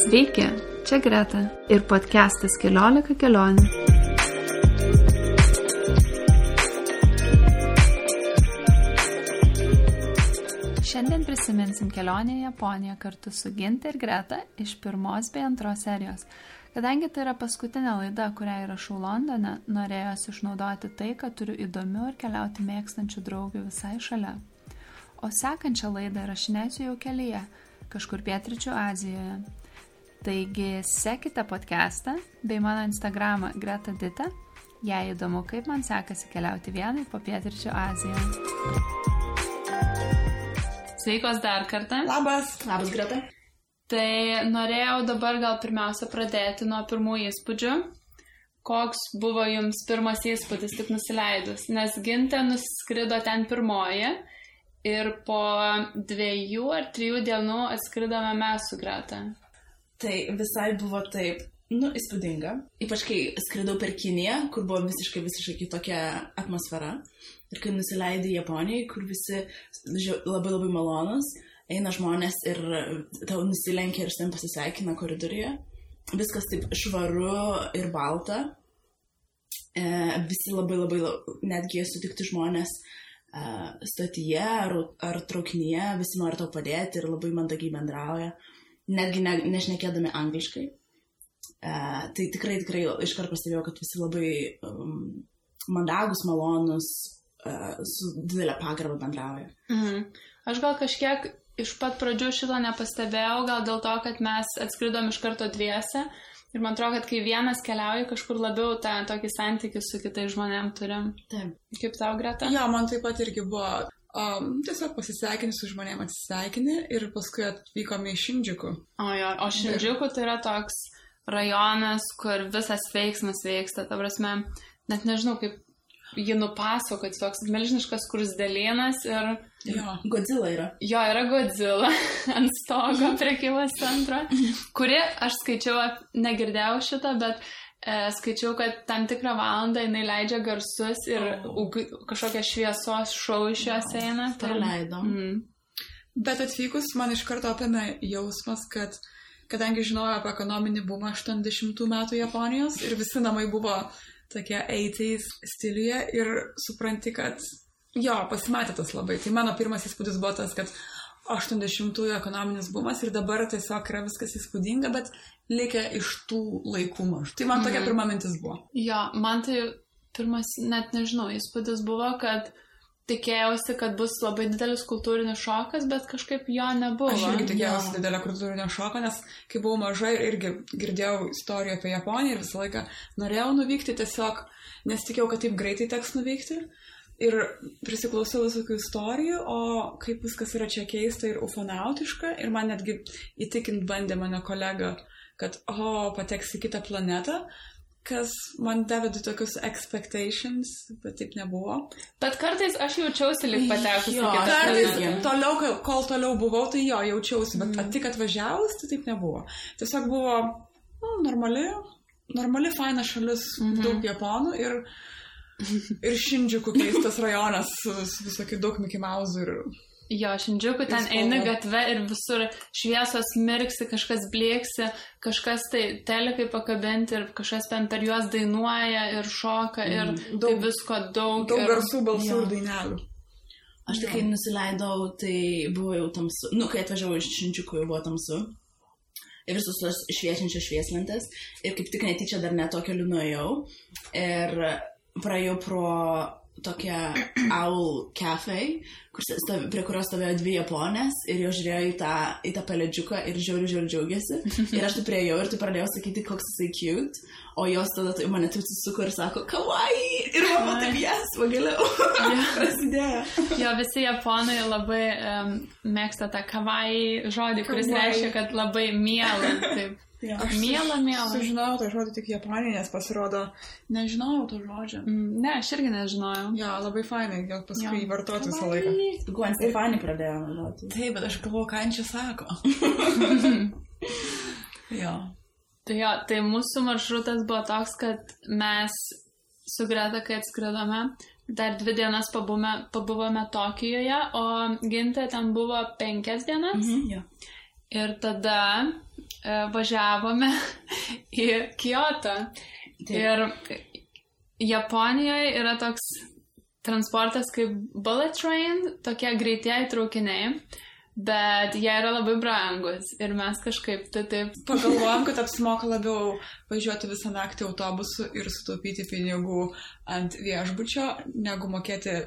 Sveiki, čia Greta ir podcastas 14 kelionių. Šiandien prisiminsim kelionę į Japoniją kartu su Ginte ir Greta iš 1 bei 2 serijos. Kadangi tai yra paskutinė laida, kurią įrašau Londone, norėjosi išnaudoti tai, kad turiu įdomių ir keliauti mėgstančių draugių visai šalia. O sekančią laidą įrašinėsiu jau kelyje, kažkur pietryčių Azijoje. Taigi sekite podcastą bei mano Instagramą Greta Dita, jei įdomu, kaip man sekasi keliauti vienai po pietryčių Aziją. Sveikos dar kartą. Labas Greta. Tai norėjau dabar gal pirmiausia pradėti nuo pirmų įspūdžių. Koks buvo jums pirmas įspūdis tik nusileidus? Nes Ginte nuskrido ten pirmoji ir po 2 ar 3 dienų atskridome mes su Greta. Tai visai buvo taip, įspūdinga. Ypač kai skridau per Kiniją, kur buvo visiškai kitokia atmosfera. Ir kai nusileidai Japonijai, kur visi labai malonus. Eina žmonės ir tau nusilenkia ir sen pasisveikina koridoriuje. Viskas taip švaru ir balta. Visi labai netgi sutikti žmonės stotyje ar traukinyje. Visi nori tau padėti ir labai mandagiai bendrauja. Netgi nešnekėdami angliškai. Tai tikrai iškart pastebėjau, kad visi labai mandagus, malonus, su didelė pagarba bendrauja. Aš gal kažkiek iš pat pradžių šito nepastebėjau, gal dėl to, kad mes atskridom iš karto dviese ir man atrodo, kad kai vienas keliauja, kažkur labiau tą tokį santykį su kitais žmonėm turim. Taip. Kaip tau, Greta? Jo, man taip pat irgi buvo tiesiog pasisveikini su žmonėm, atsisveikini ir paskui atvykome į Šindžiuku. O Šindžiuku tai yra toks rajonas, kur visas veiksmas vyksta, ta prasme, net nežinau, kaip jį nupasakoti, toks milžiniškas skruzdėlynas ir... Jo, Godzilla yra. Jo, yra Godzilla ant stogo prekybos centro, kuri, aš skaičiau, negirdėjau šito, bet skaičiau, kad tam tikrą valandą jinai leidžia garsus ir kažkokia šviesos šou iš jos eina. Tai leido. Bet atvykus man iš karto apėmė jausmas, kad kadangi žinojau apie ekonominį bumą 80 metų Japonijos ir visi namai buvo tokie 80s stiliuje ir supranti, kad pasimatė tas labai. Tai mano pirmas įspūdis buvo tas, kad 80-ųjų ekonominis bumas ir dabar tiesiog yra viskas įspūdinga, bet likę iš tų laikų maž. Tai man tokia pirma mintis buvo. Jo, man tai pirmas, net nežinau, įspūdis buvo, kad tikėjausi, kad bus labai didelis kultūrinis šokas, bet kažkaip jo nebuvo. Aš irgi tikėjausi didelio kultūrinio šoko, nes kai buvau maža ir irgi girdėjau istorijų apie Japoniją ir visą laiką norėjau nuvykti, tiesiog nesitikėjau, kad taip greitai teks nuvykti. Ir prisiklausiau visokių istorijų, o kaip viskas yra čia keista ir ufonautiška. Ir man netgi įtikint bandė mano kolega, kad pateks į kitą planetą. Kas man davė tokius expectations, bet taip nebuvo. Bet kartais aš jaučiausi lyg patekusi į kitą planetą. Toliau, kol toliau buvau, tai jaučiausi, bet tik atvažiavus, tai taip nebuvo. Tiesiog buvo normali faina šalis, daug japonų ir Šindžiuku keistas rajonas su visokių daug Mickey Mouse ir... Jo, Šindžiuku ten eini gatve ir visur šviesos mirksi, kažkas blėksi, kažkas tai telikai pakabinti ir kažkas ten per juos dainuoja ir šoka ir daug visko daug. Daug garsų, balsų ir dainelių. Aš tik kai nusileidau, tai buvo jau tamsu. Kai atvažiavau iš Šindžiuku, jau buvo tamsu. Ir visus tos šviečiančios švieslentės. Ir kaip tik netyčia dar ne to keliu nuėjau. Ir praėjau pro tokią Owl Cafe, prie kurios stovėjo 2 japonės ir jos žiūrėjo į tą pelėdžiuką ir žiauriai džiaugiasi. Ir aš tai priejau ir tai pradėjau sakyti, koks jisai cute, o jos tada mane taip susisuko ir sako, kawaii! Ir mama taip, yes, pagaliau. Prasidėjo. Jo, visi japonai labai mėgsta tą kawaii žodį, kuris reiškia, kad labai miela. Taip. Aš miela. Sužinojau tą žodį tik Japonijai, nes pasirodo, nežinojau to žodžio. Ne, aš irgi nežinojau. Jo, labai fainai, gal paskui įvartoti visą laiką. Gwen Stefani pradėjo naudoti. Taip, bet aš galvoju, ką čia sako. Jo. Tai mūsų maršrutas buvo toks, kad mes su Greta, kai atskridome, dar 2 dienas pabuvome Tokijoje, o Ginte ten buvo 5 dienas. Jo. Ir tada važiavome į Kiotą. Ir Japonijoje yra toks transportas kaip bullet train, tokie greitieji traukiniai. Bet jie yra labai brangus ir mes kažkaip taip pagalvojom, kad apsimoka labiau važiuoti visą naktį autobusu ir sutaupyti pinigų ant viešbučio, negu mokėti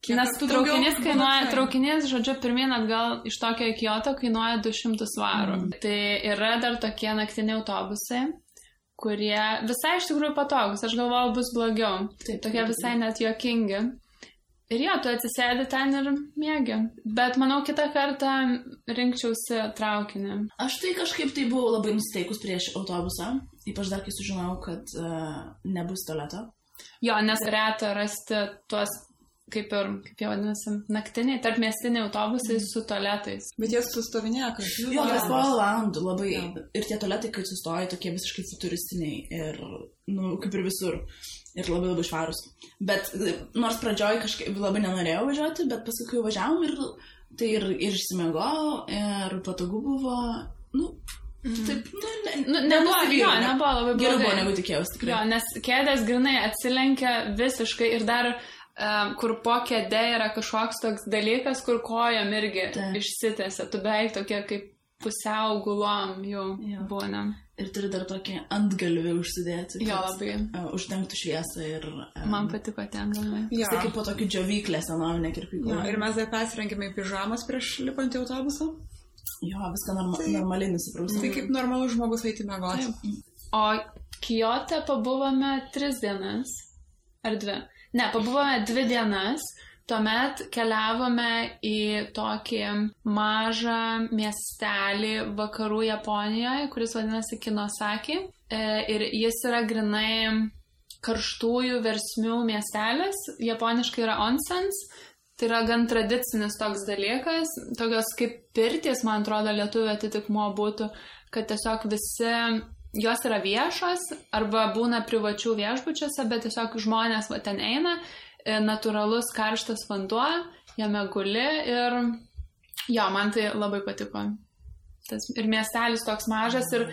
Nes traukinys, žodžiu, pirmyn atgal iš Tokio į Kiotą kainuoja 200 svarų. Tai yra dar tokie naktiniai autobusai, kurie visai iš tikrųjų patogus. Aš galvojau, bus blogiau. Tokie visai net juokingi. Ir jo, tu atsisėdi ten ir mėgi. Bet manau, kitą kartą rinkčiausi traukinį. Aš tai kažkaip tai buvau labai nusiteikus prieš autobusą. Ypač dar kai sužinojau, kad nebus tualeto. Jo, nes reta rasti tuos, kaip jie vadinasi, naktiniai, tarpmiestiniai autobusai su tualetais. Bet jie sustovinėja, kad jo, kas porą valandų labai. Ir tie tualetai, kai sustoja, tokie visiškai futuristiniai. Ir, kaip ir visur. Ir labai labai švarus. Bet nors pradžioj kažkaip labai nenorėjau važiuoti, bet paskui kai važiavom tai ir išsimegojau, ir patogu buvo, taip, nebuvo labai blogai. Geriau buvo negu tikėjausi, tikrai. Jo, nes kėdės grinai atsilenkia visiškai ir dar, kur po kėdė yra kažkoks toks dalykas, kur kojom irgi išsitęsia. Tu beveik tokie kaip pusiau gulom jau būna. Ir turi dar tokį antgalvį užsidėti. Jo, labai. Uždengtų šviesą ir... Man patiko ten galvai. Tai kaip po tokį džiovyklę senovinę kirpyklą. Ir mes dar persirengėme į pižamas prieš lipant į autobusą. Jo, viską normaliai nusiprausime. Tai kaip normalus žmogus eiti miegoti. O Kiote pabuvome 3 dienas. Ar 2? Ne, pabuvome 2 dienas. Tuomet keliavome į tokį mažą miestelį vakarų Japonijoje, kuris vadinasi Kinosaki. Ir jis yra grinai karštųjų versmių miestelis. Japoniškai yra onsens. Tai yra gan tradicinis toks dalykas. Tokios kaip pirtys, man atrodo, lietuvių atitikmuo būtų, kad tiesiog visi... Jos yra viešos arba būna privačių viešbučiuose, bet tiesiog žmonės ten eina. Natūralus karštas vanduo, jame guli ir jo, man tai labai patiko. Ir miestelis toks mažas ir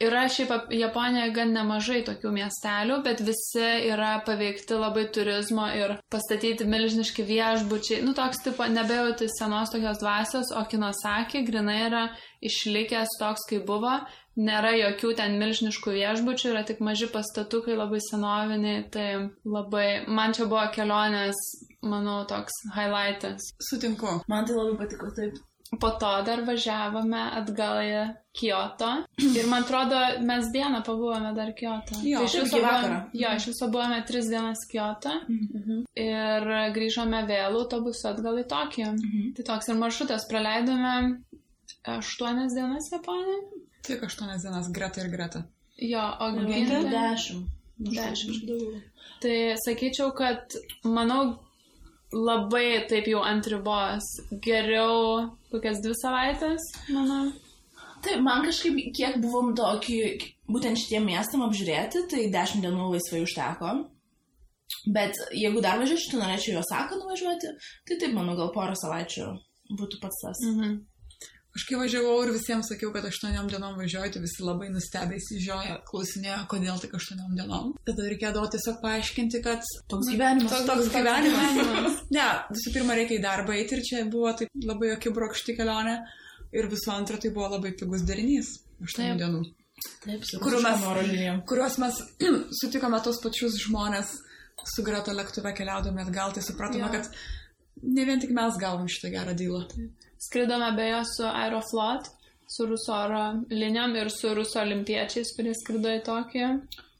yra šiaip Japonijoje gan nemažai tokių miestelių, bet visi yra paveikti labai turizmo ir pastatyti milžiniški viešbučiai. Toks tipo nebejauti senos tokios dvasios, o Kinosaki grinai yra išlikęs toks, kaip buvo. Nėra jokių ten milžiniškų viešbučių, yra tik maži pastatukai, labai senoviniai, tai labai, man čia buvo kelionės, manau, toks highlightas. Sutinku. Man tai labai patiko, taip. Po to dar važiavome atgal į Kioto ir man atrodo, mes dieną pabuvome dar Kioto. Jo, tai iš viso buvome 3 dienas Kioto ir grįžome vėl autobusu atgal į Tokiją. Tai toks ir maršrutas, praleidome 8 dienas Japonijoje. Tik 8 dienas, Greta ir Greta. Jo, o Gintė 10. Tai sakyčiau, kad manau labai taip jau ant ribos. Geriau kokias 2 savaitės, manau. Taip, man kažkaip, kiek buvom tokį, būtent šitiem miestam apžiūrėti, tai 10 dienų laisvai užteko. Bet jeigu dar važiuočiau, tai norėčiau į Osaką nuvažiuoti, tai taip, manau, gal 1 savaičių būtų pats tas. Aš kai važiavau ir visiems sakiau, kad 8 dienom važiuoju, tai visi labai nustebę įsižioja, klausinėjo, kodėl tik 8 dienom. Tada reikėdavo tiesiog paaiškinti, kad toks gyvenimas. Toks gyvenimas. Ne, visų pirma reikia į darbą eiti ir čia buvo taip labai akibrokšti kelionė. Ir visų antra, tai buvo labai pigus derinys 8 dienų. Taip, kuriuos mes sutikome tos pačius žmonės su Greta lėktuve keliaudami atgal, tai supratome, kad ne vien tik mes gavom šitą gerą dylą. Skridome beje su Aeroflot, su Rusų oro linijom ir su Rusų olimpiečiais, kurie skrido į Tokiją.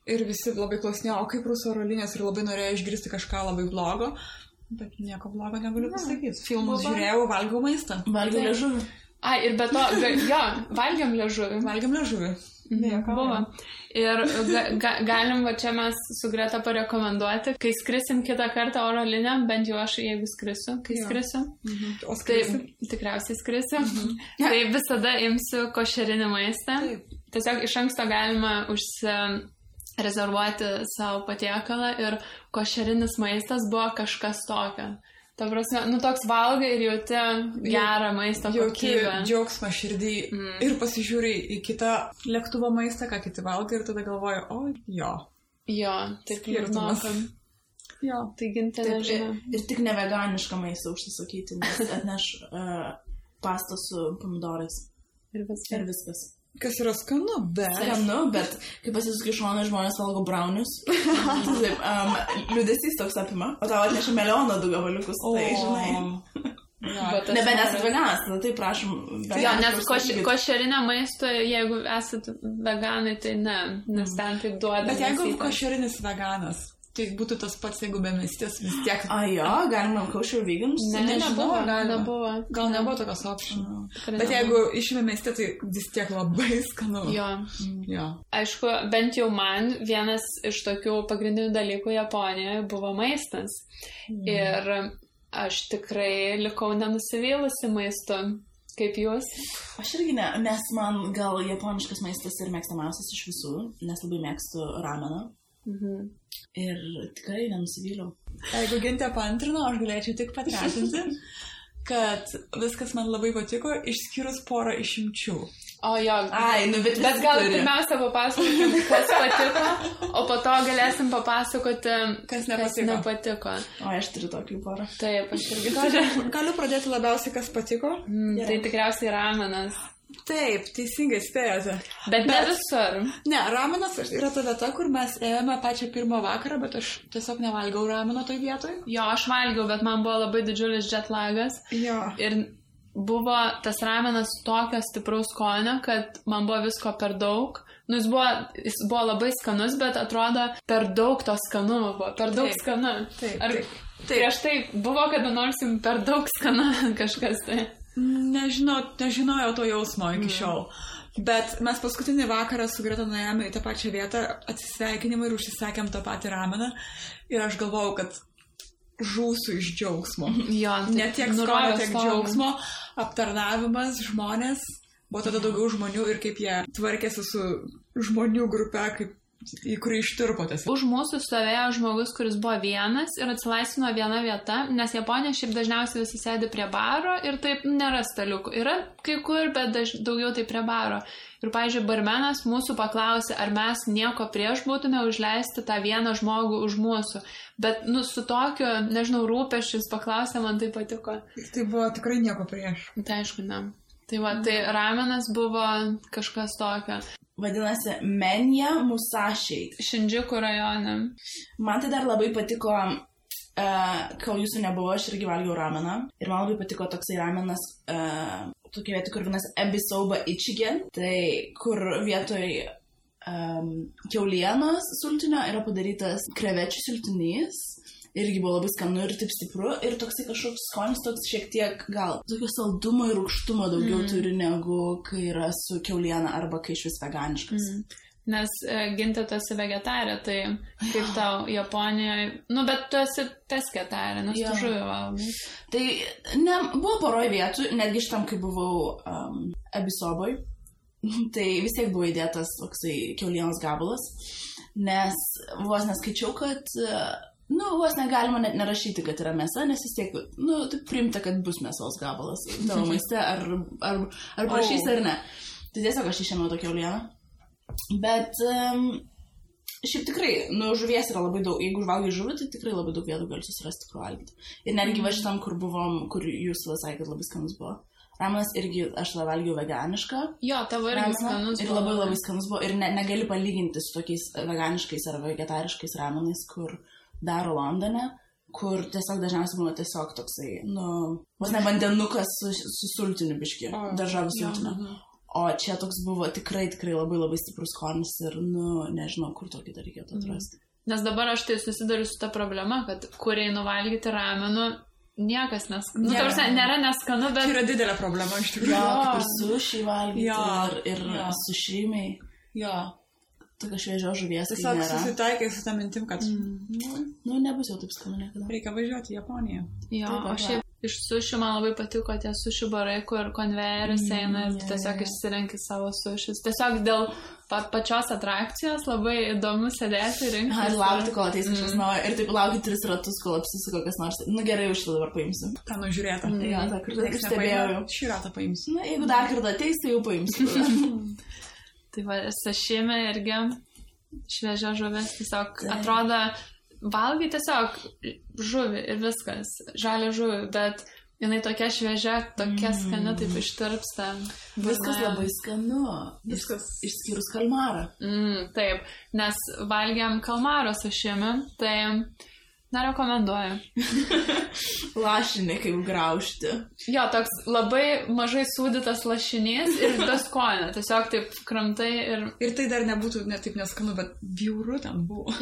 Ir visi labai klausinėjo, o kaip Rusų oro linijos, ir labai norėjo išgirsti kažką labai blogo, bet nieko blogo negaliu pasakyti. Filmus žiūrėjau, valgiau maistą. Valgiau liežuvį. Ir be to, valgiam liežuvį. Valgiam liežuvį. Buvo. Ir galim va čia mes su Greta parekomenduoti, kai skrisim kitą kartą oro linijom, bent jau aš, jeigu skrisiu, O skrisi? Tai tikriausiai skrisiu. Tai visada imsiu košerinį maistą. Tiesiog iš anksto galima rezervuoti savo patiekalą ir košerinis maistas buvo kažkas tokio. Ta prasme, toks valgai ir jauti gerą maisto kokybę. Jauti džiaugsmą širdį ir pasižiūri į kitą lėktuvo maistą, ką kiti valgai ir tada galvoju, jo. Jo, taip liūdnokam. Jo. Tai Gintė nežinau. Ir tik neveganišką maistą užsisakyti, nes atneš pastą su pomidorais. Ir viskas. Kas yra skanu, bet kai pasisukai šoną žmonės valgo braunius, liūdesys toks apima, o tau atneša melioną du gabaliukus, tai žinai. Nebent esat veganas, tada tai prašom. Jo, nes košerinė maisto, jeigu esat veganai, tai ne, nes ten taip duoda. Bet jeigu košerinis veganas, tai būtų tas pats, jeigu be mėstės vis tiek. Galima kosher vegans? Nebuvo. Gal nebuvo tokios option. Bet jeigu išime mėstė, tai vis tiek labai skanu. Jo. Aišku, bent jau man vienas iš tokių pagrindinių dalykų Japonijoje buvo maistas. Ir aš tikrai likau nenusivylusi maistu. Kaip jūs? Aš irgi ne, nes man gal japoniškas maistas ir mėgstamiausias iš visų, nes labai mėgstu rameną. Ir tikrai nenusivyliau. Jeigu Gintė paantrino, aš galėčiau tik patvirtinti, kad viskas man labai patiko, išskyrus porą išimčių. Bet gal pirmiausia papasakokim, kas patiko, o po to galėsim papasakoti, kas nepatiko. Aš turiu tokį porą. Taip, aš irgi. Galiu pradėti labiausiai, kas patiko? Tai tikriausiai ramenas. Taip, teisingai spėjote. Bet ne visur. Ne, ramenas yra ta vieta, kur mes ėjome pačią pirmą vakarą, bet aš tiesiog nevalgiau rameno toj vietoj. Jo, aš valgiau, bet man buvo labai didžiulis jetlagas. Jo. Ir buvo tas ramenas tokio stipraus skonio, kad man buvo visko per daug. Jis buvo labai skanus, bet atrodo per daug to skanumo buvo. Per daug skanu. Taip. Prieš tai buvo, kada nors jums per daug skanu kažkas tai. Nežinojau to jausmo iki šiol. Bet mes paskutinį vakarą su Greta nuėjome į tą pačią vietą atsisveikinimą ir užsisakėm tą patį rameną. Ir aš galvojau, kad žūsiu iš džiaugsmo. Jo, ne tiek skonio, tiek džiaugsmo. Aptarnavimas, žmonės. Buvo tada daugiau žmonių ir kaip jie tvarkėsi su žmonių grupe, į kurį ištirpotės. Už mūsų stovėjo žmogus, kuris buvo vienas ir atsilaisvino viena vieta, nes Japonija šiaip dažniausiai visi sėdi prie baro ir taip nėra staliukų. Yra kai kur, bet daugiau tai prie baro. Ir, pavyzdžiui, barmenas mūsų paklausė, ar mes nieko prieš būtume užleisti tą vieną žmogų už mūsų. Bet, su tokiu, nežinau, rūpesčius paklausė, man tai patiko. Tai buvo tikrai nieko prieš. Tai aišku, ne. Tai ramenas buvo kažkas tokio. Vadinasi, Menja Musashi. Šindžiuku rajone. Man tai dar labai patiko, kol jūsų nebuvo, aš irgi valgiau rameną. Ir man labai patiko toksai ramenas, tokia vieta, kur vienas Ebisoba Ichigen. Tai kur vietoj kiaulienos sultinio yra padarytas krevečių sultinys. Irgi buvo labai skanu ir taip stipru. Ir toksai kažkoks skonis toks šiek tiek gal tokio saldumo ir rūgštumo daugiau turi negu kai yra su kiauliena arba kai iš vis veganiškas. Nes Gintė, tu esi vegetarė, tai kaip tau Japonijoje... bet tu esi pesketarė, nes tu žuvį valgai. Tai buvo poroj vietų, netgi šitam, kai buvau Ebisoboj, tai vis tiek buvo įdėtas toksai kiaulienos gabalas, nes vos neskaičiau, kad... vos negalima net nerašyti, kad yra mėsa, nes vis tiek, taip priimta, kad bus mėsos gabalas tavo maiste, ar prašys ar ne. Tai tiesiog aš išėmiau tokią kiaulieną. Bet šiaip tikrai, žuvies yra labai daug. Jeigu valgai žuvį, tai tikrai labai daug vietų gali susirasti, kur valgyti. Ir netgi va šitam, kur buvom, kur jūs sakėt, kad labai skanus buvo. Ramenas irgi, aš tada valgiau veganišką. Jo, tavo irgi skanus buvo. Ir labai skanus buvo. Ir negali palyginti su tokiais veganiškais ar vegetariškais ramenais, kur daro Londone, kur tiesiog dažniausiai būna tiesiog toksai, vos ne vandenukas su sultiniu biški, daržovių sultiniu. O čia toks buvo tikrai labai stiprus skonis ir, nežinau, kur tokį dar reikėtų atrasti. Nes dabar aš tai susiduriu su ta problema, kad kur einu valgyti ramenų, niekas neskanu. Nėra neskanu, bet... Tai yra didelė problema iš tikrųjų. Kaip ir sushi valgyti ir sušrimiai. Jo. Tokia šviežio žuvies, tai nėra. Tiesiog susitaikai su tą mintim, kad... nebus jau taip skanu niekada. Reikia važiuoti į Japoniją. Jo, o šiaip iš sušių man labai patiko tie sušių barai, kur konvejeris eina ir tiesiog išsirenki savo sušius. Tiesiog dėl pačios atrakcijos labai įdomu sėdėti ir rinkti. Ir laukti, kol ateis kažkas naujo. Ir taip laukti 3 ratus, kol apsisuko kas nors. Nu gerai, už tai dabar paimsiu. Tą nužiūrėtą. Jo, tą kartą stebėjau. Šį ratą paimsiu. Na, jeigu dar kartą ateis, tai jau paimsiu. Tai va, sašimi irgi šviežia žuvis. Tiesiog atrodo, valgai tiesiog žuvį ir viskas. Žalia žuvį, bet jinai tokia šviežia, tokia skani, taip ištirpsta. Viskas labai skanu. Viskas išskyrus kalmarą. Taip, nes valgiam kalmaro sašimi, tai nerekomenduoju. Lašinį kaip graužti. Jo, toks labai mažai sūdytas lašinys ir tas skonio. Tiesiog taip kramtai ir... Ir tai dar nebūtų ne taip neskanu, bet bjauru ten buvo.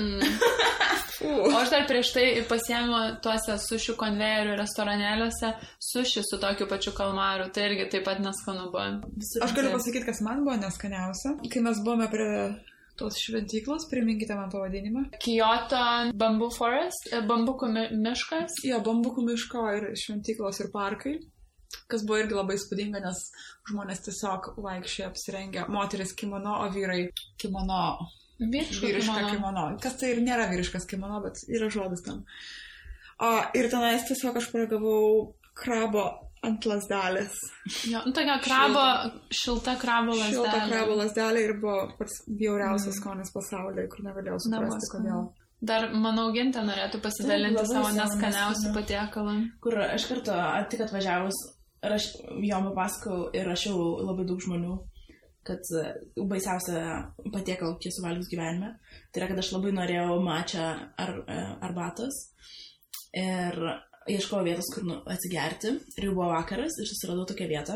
O aš dar prieš tai pasiėmiau tuose sušių konvejerių restoranėliuose sušį su tokiu pačiu kalmaru. Tai irgi taip pat neskanu buvo. Aš galiu pasakyti, kas man buvo neskaniausia. Kai mes buvome prie tos šventyklos, priminkite man pavadinimą. Kyoto Bamboo Forest, bambukų miškas. Jo, bambukų miško ir šventyklos ir parkai. Kas buvo irgi labai spūdinga, nes žmonės tiesiog vaikščiai apsirengę. Moteris kimono, o vyrai kimono. Vyriška kimono. Kas tai ir nėra vyriškas kimono, bet yra žodis tam. Ir tenais tiesiog aš paragavau krabo ant lasdelės. Jo, tokia šilta krabo lasdelė. Šilta krabo lasdelė ir buvo pats bjauriausias skonis pasaulyje, kur negalėjau suprasti, kodėl. Dar, manau, Gintė norėtų pasidalinti savo neskaniausių patiekalą. Kur aš kartu tik atvažiavus, jom papasakau ir rašiau labai daug žmonių, kad baisiausia patiekalą, kiek suvalgius gyvenime, tai yra, kad aš labai norėjau matcha arbatos ir ieškojau vietos, kur atsigerti. Ir jau buvo vakaras ir susiradau tokią vietą.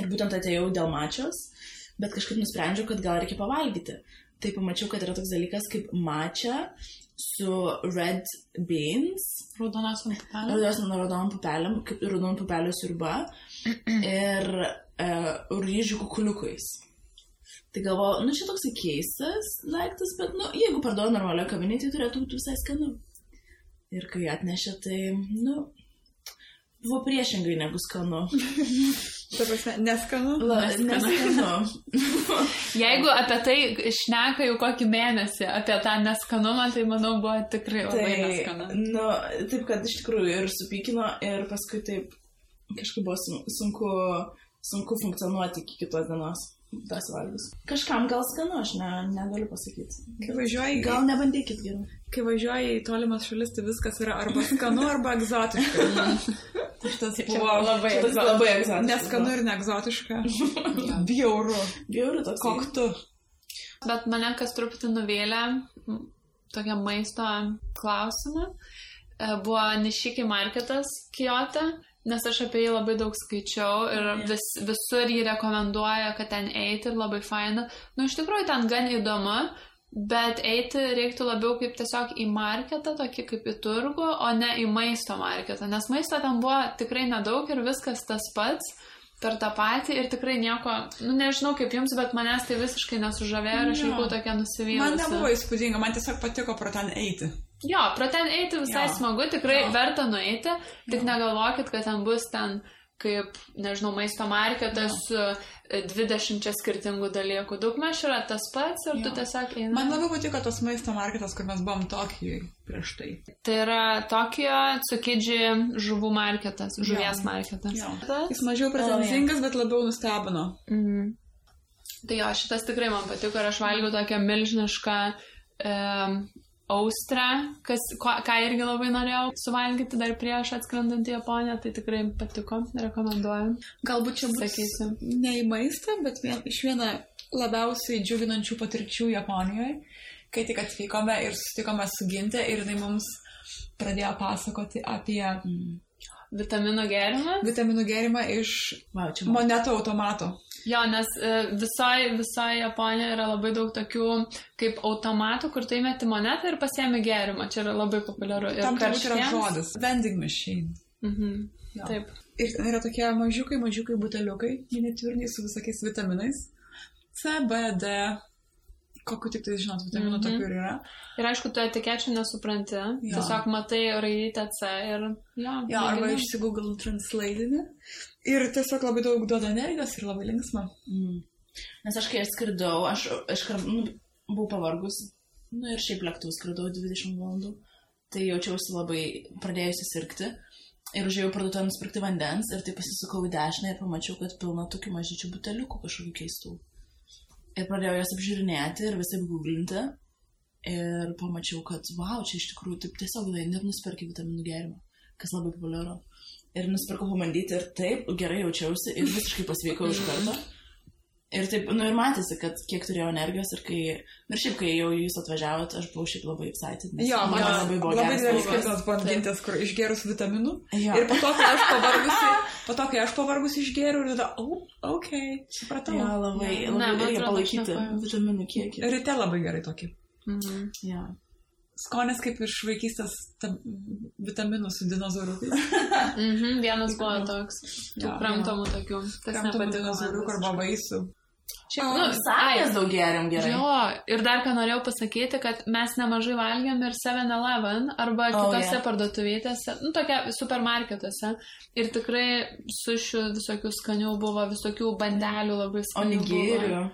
Ir būtent atėjau dėl matchos, bet kažkaip nusprendžiau, kad gal reikia pavalgyti. Tai pamačiau, kad yra toks dalykas kaip matcha su red beans. Raudonom pupelėm, kaip raudonų pupelių sriuba. Ir ryžių kukuliukais. Tai galvoju, čia toksai keistas daiktas, bet, jeigu parduoda normalioje kavinėje, tai turėtų būti visai skanu. Ir kai atnešė, tai, buvo priešingai negu skanu. Ta prasme, neskanu? Neskanu. Jeigu apie tai šneka jau kokį mėnesį, apie tą neskanumą, tai manau buvo tikrai labai neskanu. Taip, kad iš tikrųjų ir supykino, ir paskui taip kažkaip buvo sunku funkcionuoti iki kitos dienos. Tas valgus. Kažkam gal skanu, aš negaliu pasakyti. Gal nebandykit geriau. Kai važiuoji į tolimas šalis, tai viskas yra arba skanu, arba egzotiška. Šitas buvo labai egzotiška. Neskanu ir neegzotiška. Bjauru. Bjauru toks. Koktu. Bet mane kas truputį nuvėlė tokia maisto klausimą. Buvo Nishiki marketas Kyoto. Nes aš apie jį labai daug skaičiau ir visur jį rekomenduoja, kad ten eiti ir labai faina. Iš tikrųjų ten gan įdomu, bet eiti reiktų labiau kaip tiesiog į marketą, tokį kaip į turgų, o ne į maisto marketą. Nes maisto ten buvo tikrai nedaug ir viskas tas pats per tą patį ir tikrai nieko, nežinau kaip jums, bet manęs tai visiškai nesužavėjo ir aš likau tokia nusivylusi. Man nebuvo įspūdinga, man tiesiog patiko pro ten eiti. Jo, pro ten eiti visai smagu, tikrai verta nueiti, tik negalvokit, kad ten bus ten kaip, nežinau, maisto marketas su 20 skirtingų dalykų. Daugmaž yra tas pats ir tu tiesiog eini. Man labai patiko tas maisto marketas, kur mes buvom Tokijoj prieš tai. Tai yra Tokijo Tsukiji žuvų marketas, žuvies marketas. Jis mažiau pretenzingas, bet labiau nustebino. Tai jo, šitas tikrai man patiko ir aš valgiau tokią milžinišką austrą, ką irgi labai norėjau suvalgyti dar prieš atskrendant į Japoniją, tai tikrai patiko, rekomenduoju. Galbūt čia bus ne į maistą, bet iš vieną labiausiai džiuginančių patirčių Japonijoje, kai tik atvykome ir susitikome su Ginte ir jinai mums pradėjo pasakoti apie vitaminų gėrimą. Vitaminų gėrimą iš monetų automato. Jo, nes visoje Japonijoje yra labai daug tokių kaip automatų, kur tu įmeti monetą ir pasiemi gėrimą. Čia yra labai populiaru. Tam turbūt yra žodis. Vending machine. Taip. Ir ten yra tokie mažiukai buteliukai, miniatiūriniai su visokiais vitaminais. C, B, D, kokiu tik tai, žinot, vitaminų tokių ir yra. Ir aišku, tu etikečių nesupranti, tiesiog matai raidytę C ir arba išsigoogle translatinį. Ir tiesiog labai daug duoda energijos ir labai linksma. Nes aš kai skridau, aš buvau pavargus, ir šiaip lėktuvu skridau 20 valandų, tai jaučiausi labai pradėjusi sirgti. Ir užėjau parduotuvę nusipirkti vandens ir tai pasisukau į dešinę ir pamačiau, kad pilna tokių mažyčių buteliukų kažkokių keistų. Ir pradėjau jas apžiūrinėti ir visai googlinti. Ir pamačiau, kad čia iš tikrųjų taip tiesiog ir nusipirkai vitaminų gėrimą, kas labai populiaru. Ir nusipirkau pabandyti ir taip gerai jaučiausi ir visiškai pasveikau iš karto. Ir taip, ir matėsi, kad kiek turėjau energijos ir šiaip, kai jau jūs atvažiavot, aš buvau šiaip labai excited. Man labai buvo geras. Labai didelis skirtumas buvo gintis, kur išgerus vitaminų. Ir po to, kai aš pavargusi išgeriu, ir tada, supratau. Labai reikia palaikyti vitaminų kiekį. Ryte labai gerai tokį. Skonis kaip iš vaikystės vitaminų su dinozauriukais. Vienas buvo toks. Kramtomų tokių. Kramtomų dinozauriukų arba vaisių. Sakės daug geriam gerai. Ir dar ką norėjau pasakyti, kad mes nemažai valgiam ir 7-Eleven arba kitose parduotuvėtėse, tokia supermarketuose. Ir tikrai sušių visokių skanių buvo, visokių bandelių labai skanių onigirių.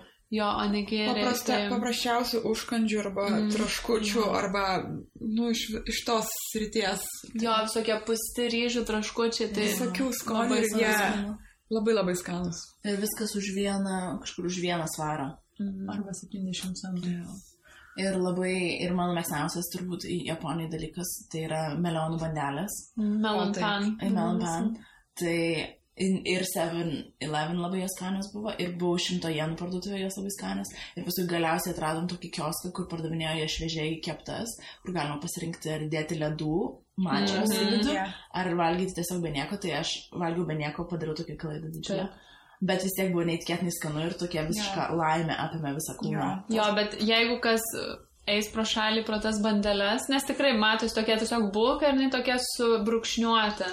Onigiriai. Paprasčiausių užkandžių arba traškučių arba, iš tos srities. Visokie pusti ryžių traškučiai. Visokių skonių ir jie labai labai skanus. Ir viskas kažkur už vieną svarą. Arba 70 centų. Ir mano mėgstamiausias turbūt Japonijai dalykas, tai yra melionų bandelės. Melon pan. Tai ir 7-Eleven labai jos skanios buvo, ir buvo 100 jenų parduotuvė jos labai skanios. Ir paskui galiausiai atradom tokį kioską, kur pardavinėjo jie šviežiai keptas, kur galima pasirinkti ar dėti ledų, mačios į vidų, ar valgyti tiesiog be nieko. Tai aš valgiau be nieko, padariau tokią klaidą didžiulę. Bet vis tiek buvo neįtikėtinai skanu ir tokia visiška laimė apėmė visą kūną. Bet jeigu kas eis pro šalį pro tas bandeles, nes tikrai matos tokia tiesiog bulka ir jinai tokia subrukšniuota.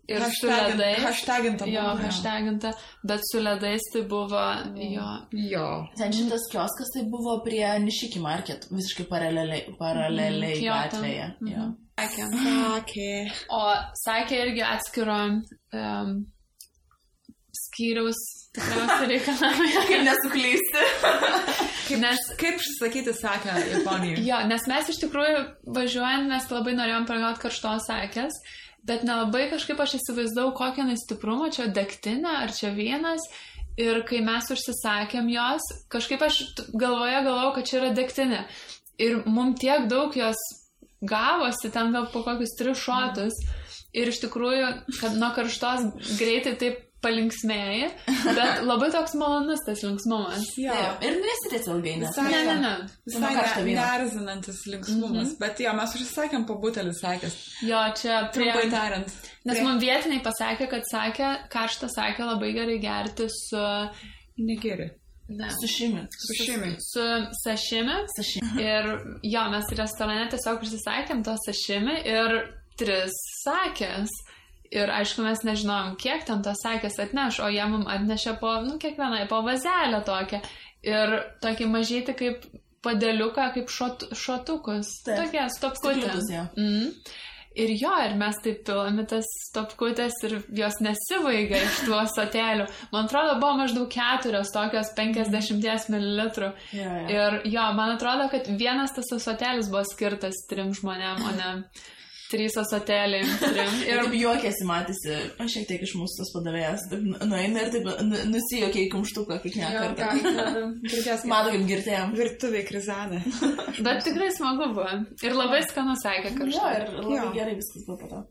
Ir su ledais. Hashtaginta. Bet su ledais tai buvo, Ten šitas kioskas tai buvo prie Nishiki Market, visiškai paraleliai gatvėje. Sakė. O sakė irgi atskiro skyriaus tikriausiai reikalavimai. Kaip nesuklysti. Kaip sakyti sakę Japonijoje? Nes mes iš tikrųjų važiuojant, mes labai norėjom paragauti karštos sakės, bet nelabai kažkaip aš įsivaizdavau, kokią stiprumą, čia degtinė ar čia vienas. Ir kai mes užsisakėm jos, kažkaip aš galvojau, kad čia yra degtinė. Ir mums tiek daug jos gavosi, ten gal po kokius 3 šotus. Ir iš tikrųjų, kad nuo karštos greitai taip palinksmėjai, bet labai toks malonus tas linksmumas. Ir nesitėsi ilgai, nes. Ne. Visai nerzinantis linksmumas. Bet mes užsisakėm po butelį sakės. Čia trumpai tariant. Nes man vietiniai pasakė, kad karštą sakę labai gerai gerti su... Negeri. Sušimi. Su sašimi. Ir mes restorane tiesiog užsisakėm to sašimi ir 3 sakės. Ir aišku, mes nežinom, kiek ten tos sakės atneš, o jie mums atnešė kiekvienai po vazelę tokią. Ir tokį mažyti kaip padėliuką, kaip šotukus. Tokie stopkutės. Ir ir mes taip pilami tas stopkutės ir jos nesivaiga iš tų ąsotėlių. Man atrodo, buvo maždaug 4 tokios 50 ml. Ir man atrodo, kad vienas tas ąsotėlis buvo skirtas 3 žmonėm, o ne 3 ąsotėliai. Ir juokėsi matėsi, šiek tiek iš mūsų tas padavėjas, nueina ir taip nusijuokė į kumštuką kiekvieną kartą. Mato, kaip girtėjom. Virtuviai krizanė. Bet tikrai smagu buvo. Ir labai skanu sakė kažką. Ir labai gerai viskas buvo po to.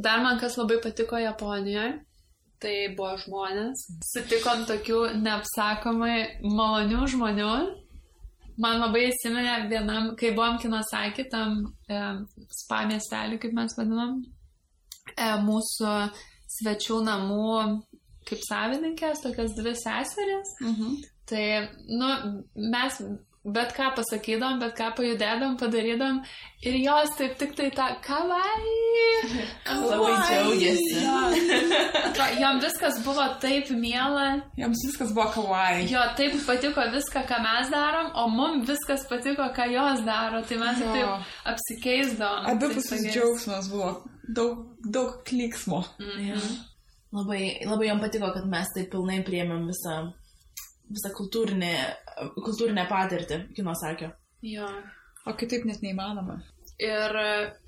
Dar man kas labai patiko Japonijoje, tai buvo žmonės. Sutikom tokių neapsakomai malonių žmonių. Man labai įsiminė vienam, kai buvom Kinosaki, tam spa miestelį, kaip mes vadinam, mūsų svečių namų kaip savininkės, tokias 2 seserės. Tai, mes bet ką pasakydom, bet ką pajudėdom, padarydom ir jos taip tik tai tą kawaii. Labai džiaugiasi. jom viskas buvo taip miela. Joms viskas buvo kawaii. Jo, taip patiko viską, ką mes darom, o mum viskas patiko, ką jos daro. Tai mes taip apsikeisdavom. Abipusis džiaugsmas buvo. Daug klyksmo. Labai jom patiko, kad mes taip pilnai priėmėm visą kultūrinę patirtį, kino sakė. Jo. O kitaip net neįmanoma. Ir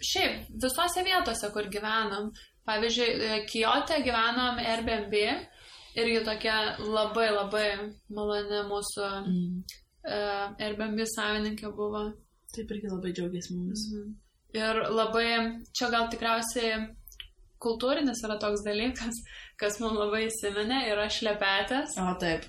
šiaip, visose vietose, kur gyvenam, pavyzdžiui, Kijote gyvenom Airbnb ir jų tokia labai labai maloni mūsų Airbnb savininkė buvo. Taip irgi labai džiaugiasi mumis. Ir labai, čia gal tikriausiai kultūrinis yra toks dalykas, kas mums labai įsiminė, yra šlepetės. O, taip.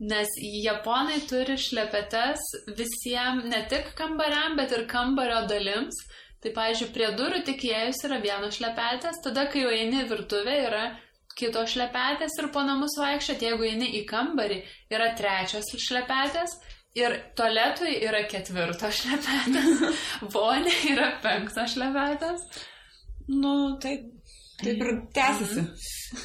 Nes japonai turi šlepetes visiems, ne tik kambariam, bet ir kambario dalims. Tai, pavyzdžiui, prie durų tik įėjus yra vienos šlepetės, tada, kai jau eini virtuvė, yra kitos šlepetės ir po namus vaikščiot, jeigu eini į kambarį, yra trečios šlepetės ir tualetui yra 4 šlepetės, vonė yra 5 šlepetės. Nu, taip ir tęsiasi.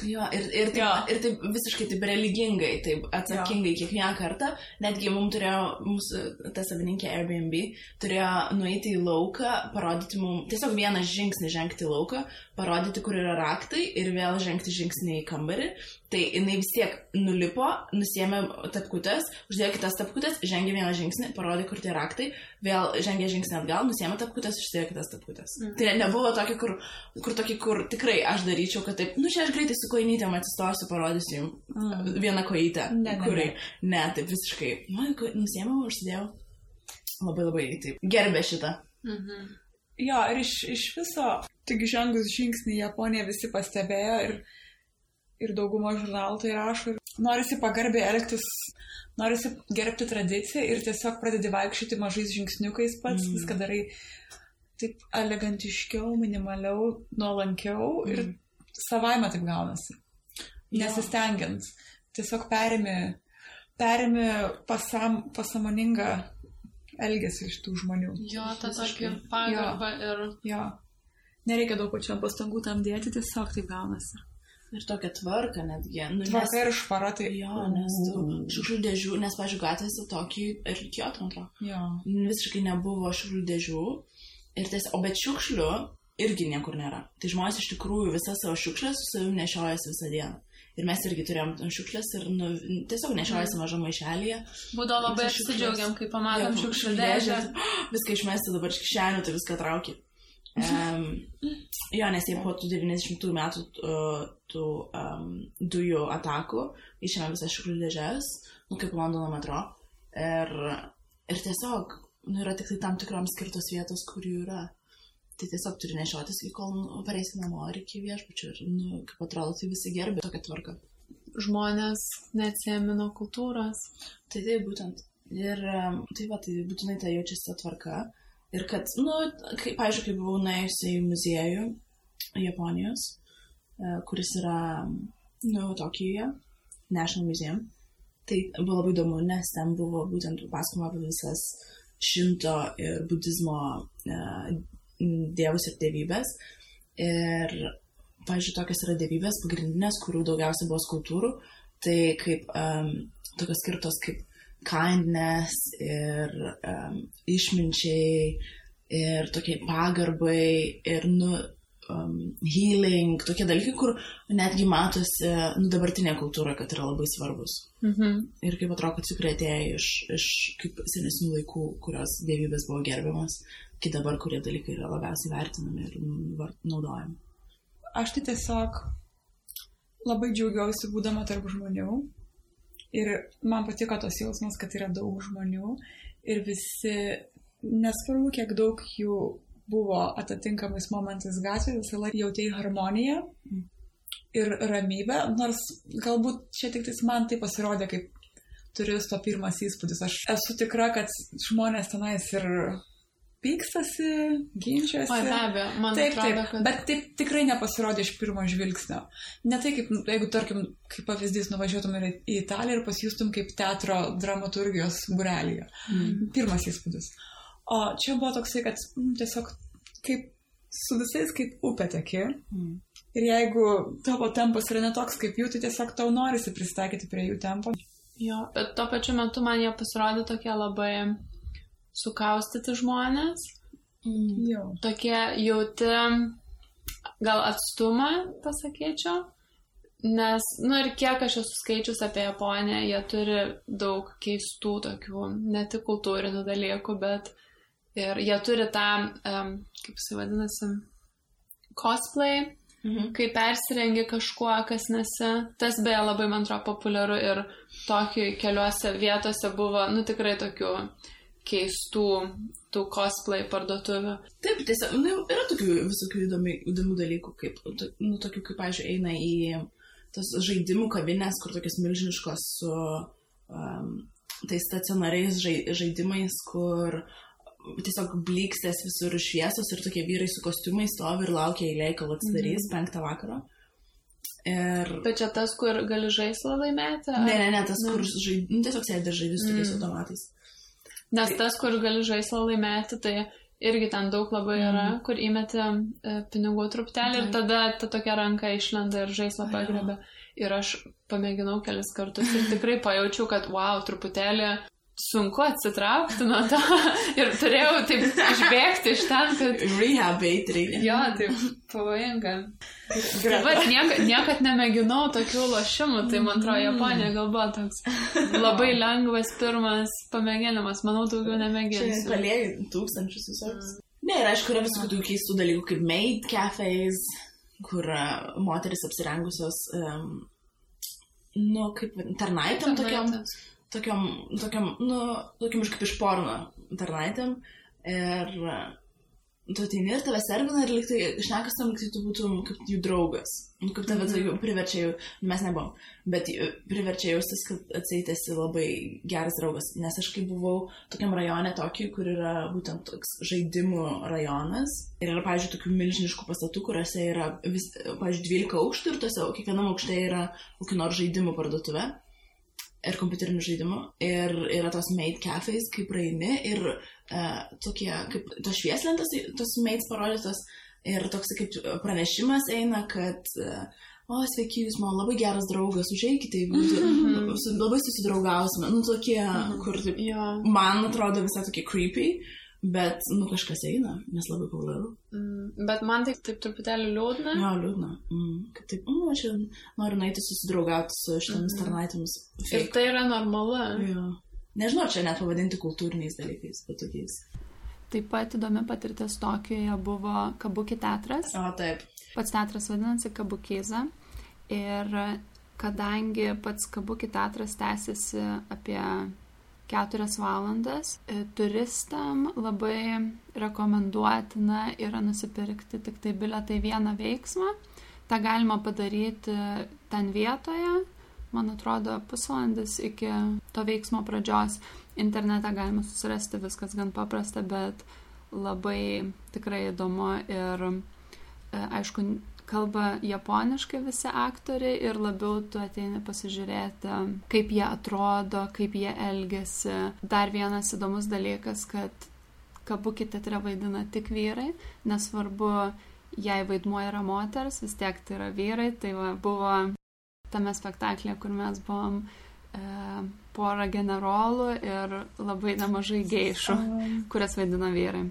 Jo, ir taip visiškai taip religingai, taip atsakingai kiekvieną kartą, netgi mūsų ta savininkė Airbnb turėjo nueiti į lauką, parodyti mums, tiesiog vieną žingsnį žengti į lauką, parodyti, kur yra raktai ir vėl žengti žingsnį į kambarį. Tai jinai vis tiek nulipo, nusiėmė tapkutes, uždėjo kitas tapkutes, žengė vieną žingsnį, parodė, kur tie raktai, vėl žengė žingsnį atgal, nusiėmė tapkutes, uždėjo kitas tapkutes. Tai nebuvo tokį, kur tikrai aš daryčiau, kad taip, čia aš greitai su kojinytėm atsistosiu, parodysiu jums vieną kojytę. Ne, taip visiškai. Nusiėmiau, užsidėjau. Labai labai taip gerbė šitą. Jo, ir iš viso, tik žengus žingsnį Japonija visi pastebėjo ir dauguma žurnalų tai rašo. Norisi pagarbiai elgtis, norisi gerbti tradiciją ir tiesiog pradedi vaikščioti mažais žingsniukais pats, viską darai taip elegantiškiau, minimaliau, nuolankiau ir savaime taip gaunasi. Nesistengiant. Tiesiog perimi pasamoningą elgesį iš tų žmonių. Jo, ta tokia pagarba ir... Jo. Nereikia daug pačiam pastangų tam dėti, tiesiog taip gaunasi. Ir tokia tvarka netgi. Tvarka ir švara tai... Jo, nes šiukšlių dėžių, nes, pavyzdžiui, gatvėse tokį ir Kyoto, man atrodo. Jo. Visiškai nebuvo šiukšlių dėžių. O bet šiukšlių irgi niekur nėra. Tai žmonės iš tikrųjų visas savo šiukšlės su savimi nešiojasi visą dieną. Ir mes irgi turėjom šiukšlės ir tiesiog nešiojasi mažą maišelėje. Būdavo labai apsidžiaugiam, kai pamatom šiukšlių dėžę. Viską išmesti dabar iš kišenių, tai viską trauki. Jo, nes jie po tų 90 metų tų dujų atakų išėmė visas šiukšlių dėžes, kaip Londono metro. Ir tiesiog yra tik tai tam tikroms skirtos vietos, kur jų yra. Tai tiesiog turi nešiotis, kol pareisi namo ar iki viešbučio. Ir, kaip atrodo, tai visi gerbė tokią tvarką. Žmonės neatsiėmė nuo kultūros. Tai būtent. Ir tai būtinai tai jaučiasi tvarka. Ir kad, pavyzdžiui, kai buvau nuėjusi į muziejų Japonijos, kuris yra, Tokijoje, National Museum, tai buvo labai įdomu, nes ten buvo būtent pasakoma apie visas šinto ir budizmo dievus ir dievybės. Ir, pavyzdžiui, tokios yra dievybės pagrindinės, kurių daugiausiai buvo skulptūrų, tai kaip tokios skirtos kaip kindness ir išminčiai ir tokie pagarbai ir healing, tokie dalykai, kur netgi matosi dabartinė kultūra, kad yra labai svarbus. Ir kaip atrodo, kad tikrai atėjo iš kaip senesnių laikų, kurios dievybės buvo gerbiamas, iki dabar, kurie dalykai yra labiausiai vertinami ir naudojami. Aš tai tiesiog labai džiaugiausi būdama tarp žmonių. Ir man patiko tos jausmas, kad yra daug žmonių ir visi, nesvarbu, kiek daug jų buvo atitinkamais momentais gatvėje, visą laiką jautėjai harmoniją ir ramybę, nors galbūt čia tik man tai pasirodė kaip turisto pirmas įspūdis. Aš esu tikra, kad žmonės tenais ir pykstasi, ginčiasi. Be abejo, man atrodo, kad... Bet taip tikrai nepasirodė iš pirmo žvilgsnio. Ne tai, kaip, jeigu, tarkim, kaip pavyzdys, nuvažiuotum į Italiją ir pasijustum kaip teatro dramaturgijos būrelyje. Pirmas įspūdis. O čia buvo toksai, kad tiesiog kaip su visais kaip upė teki. Ir jeigu tavo tempas yra netoks kaip jų, tai tiesiog tau norisi pristaikyti prie jų tempo. Jo, bet tuo pačiu metu man jie pasirodė tokie labai sukaustyti žmonės. Jo. Tokie jauti, gal atstumą, pasakyčiau. Nes, ir kiek aš esu skaičius apie Japoniją, jie turi daug keistų tokių, ne tik kultūrinių dalykų, bet ir jie turi tą, kaip jis vadinasi, cosplay, kai persirengi kažkuo, kas nesi. Tas beje labai, man atrodo, populiaru ir tokių keliuose vietose buvo, tikrai tokių keistų tų cosplay parduotuvių. Taip, tiesiog, yra tokių visokių įdomių dalykų, kaip, tokių, kaip, pavyzdžiui, eina į tos žaidimų kavinės, kur tokios milžiniškos su tais stacionariais žaidimais, kur tiesiog blykstės visur šviesos ir tokie vyrai su kostiumais stovi ir laukia eilėj, kol atsidarys 5 vakaro. Bet čia tas, kur gali žaislą laimėti? Ne, tas, kur tiesiog sėdi žaidži su tokiais automatais. Nes tas, kur gali žaislą laimėti, tai irgi ten daug labai yra, kur įmeti pinigų truptelį ir tada ta tokia ranka išlenda ir žaislą pagrebė. Ir aš pamėginau kelis kartus ir tikrai pajaučiau, kad wow, truputėlį sunku atsitraukti nuo to ir turėjau taip išbėgti iš ten, kad... Rehab reikia. Jo, taip pavojinga. Bet niekad nemėginau tokių lošimų, tai man atrodo, Japonija gal buvo toks labai lengvas pirmas pamėginimas, manau, daugiau nemėginsiu. Čia palėjai tūkstančius visoks. Ne, ir aišku, yra visokių tokių keistų dalykų kaip maid cafés, kur moteris apsirengusios, kaip tarnaitėm tokiam, kaip iš porno tarnaitėm. Ir tu ateini ir tave servina ir liktai šnekas tam, kad tu būtum kaip jų draugas. Kaip tave priverčia jau, mes nebuvom, bet priverčia jaustis, kad atseit labai geras draugas. Nes aš kai buvau tokiam rajone tokį, kur yra būtent toks žaidimų rajonas. Ir yra, pavyzdžiui, tokių milžiniškų pastatų, kuriuose yra, pavyzdžiui, 12 aukštų ir tuose kiekvienam aukšte yra kokių nors žaidimų parduotuvė. Ir kompiuterinių žaidimų. Ir yra tos maid cafés, kaip praeini ir tokie, kaip tos švieslentas, tos maids parodytos ir toks kaip pranešimas eina, kad sveiki, jūs man labai geras draugas, užeikite, labai susidraugausime. Tokie, kur taip, man atrodo visai tokie creepy, bet, kažkas eina, nes labai populiaru. Bet man taip truputėlį liūdna. Jo, liūdna. Kaip taip, aš noriu nueiti susidraugauti su šitomis tarnaitėmis. Ir tai yra normalu. Jo. Nežinau, čia net pavadinti kultūriniais dalykais, bet tokiais. Taip pat įdomi patirtis Tokijoje buvo Kabuki teatras. O, taip. Pats teatras vadinasi Kabukiza. Ir kadangi pats Kabuki teatras tęsiasi apie 4 valandas, turistam labai rekomenduotina yra nusipirkti tik tai bilietą į vieną veiksmą. Ta galima padaryti ten vietoje, man atrodo, pusvalandis iki to veiksmo pradžios. Internete galima susirasti, viskas gan paprasta, bet labai tikrai įdomu ir aišku, kalba japoniškai visi aktoriai ir labiau tu ateini pasižiūrėti, kaip jie atrodo, kaip jie elgiasi. Dar vienas įdomus dalykas, kad Kabuki teatre vaidina tik vyrai, nesvarbu, jei vaidmuo yra moters, vis tiek tai yra vyrai. Tai buvo tame spektaklėje, kur mes buvom porą generolų ir labai nemažai geišų, kurias vaidina vyrai.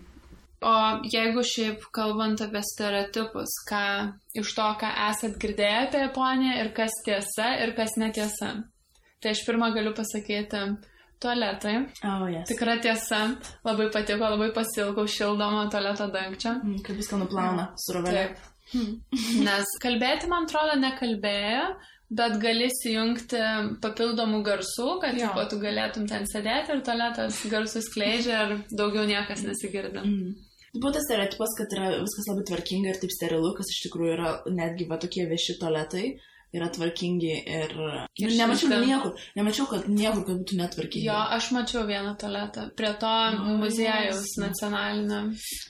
O jeigu šiaip kalbant apie stereotipus, ką iš to, ką esat girdėję apie Japoniją ir kas tiesa ir kas netiesa. Tai aš pirmą galiu pasakyti tualetai. Yes. Tikra tiesa, labai patiko, labai pasilgau šildomą tualeto dangčio. Kaip viską nuplauna su rovelė. Nes kalbėti, man atrodo, nekalbėjo, bet gali įsijungti papildomų garsų, kad tu galėtum ten sėdėti ir tualetas garsus skleidžia ir daugiau niekas nesigirdi. Buvo tas stereotipas, kad yra viskas labai tvarkinga ir taip sterilu, kas iš tikrųjų yra netgi tokie vieši tualetai yra tvarkingi ir nemačiau, kad niekur, kad būtų netvarkingi. Jo, aš mačiau vieną tualetą prie to muziejaus nacionalinio.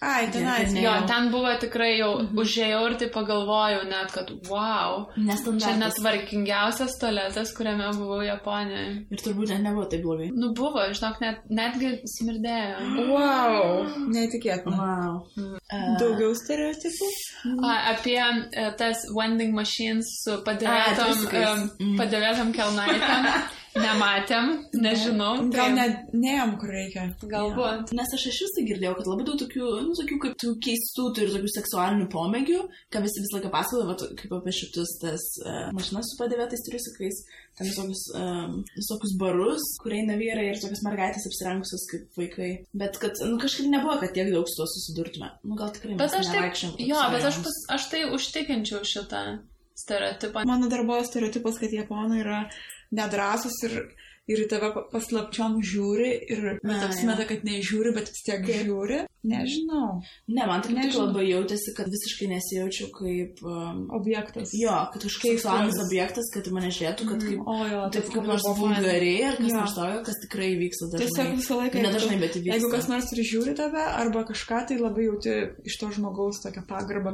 Ai, tenais. Jo, ten buvo tikrai jau užėjau ir tai pagalvojau net, kad wow, čia netvarkingiausias tualetas, kuriame buvau Japonijoje. Ir turbūt nebuvo taip blogai. Nu buvo, žinok, netgi smirdėjo. Wow, neįtikėtina. Wow. Daugiau stereotipų? Apie tas vending machines su padėvėtom kelnaitėm. Nematėm, nežinau. Gal neėjom, kur reikia. Galbūt. Nes aš iš visai girdėjau, kad labai daug tokių kaip tų keistų turi tokių seksualinių pomėgių, ką visi visą laiką pasakoja, kaip apie šitus tas mašinas su padėvėtais triusikais, ten visokius barus, kur eina vyrai ir tokias mergaitės apsirengusios kaip vaikai. Bet kad, kažkaip nebuvo, kad tiek daug su to susidurtume. Gal tikrai mes nevaikščiam. Jo, bet aš tai užtikinčiau šitą stereotipą. Mano dar buvo stereotipas, kad japonai yra nedrąsus ir į tave paslapčiom žiūri ir apsimeta, kad nežiūri, bet vis tiek žiūri. Nežinau. Ne, man tik labai jautėsi, kad visiškai nesijaučiau kaip objektas. Jo, kad kažkoks seksualinis objektas, kad mane žiūrėtų, kad taip kaip nors vulgariai ar kas nors tokio, kas tikrai vyksta dažnai. Tiesiog visą laiką, nedažnai, bet įvyksta. Jeigu kas nors ir žiūri tave arba kažką, tai labai jauti iš to žmogaus tokią pagarbą.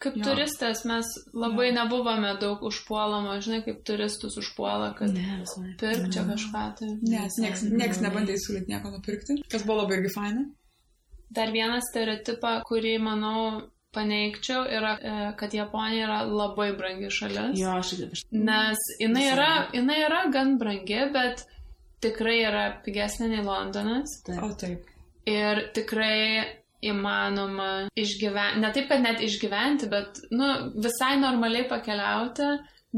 Kaip turistas mes labai nebuvome daug užpuolama, žinai, kaip turistus užpuola, kad pirk čia kažką. Nes nieks nebandė įsiūlyti nieko nupirkti, kas buvo labai irgi faina. Dar vieną stereotipą, kurį, manau, paneigčiau, yra, kad Japonija yra labai brangi šalis. Jo, aš. Nes jinai yra gan brangi, bet tikrai yra pigesnė nei Londonas. Taip. O taip. Ir tikrai įmanoma išgyventi, ne taip, kad net išgyventi, bet visai normaliai pakeliauti,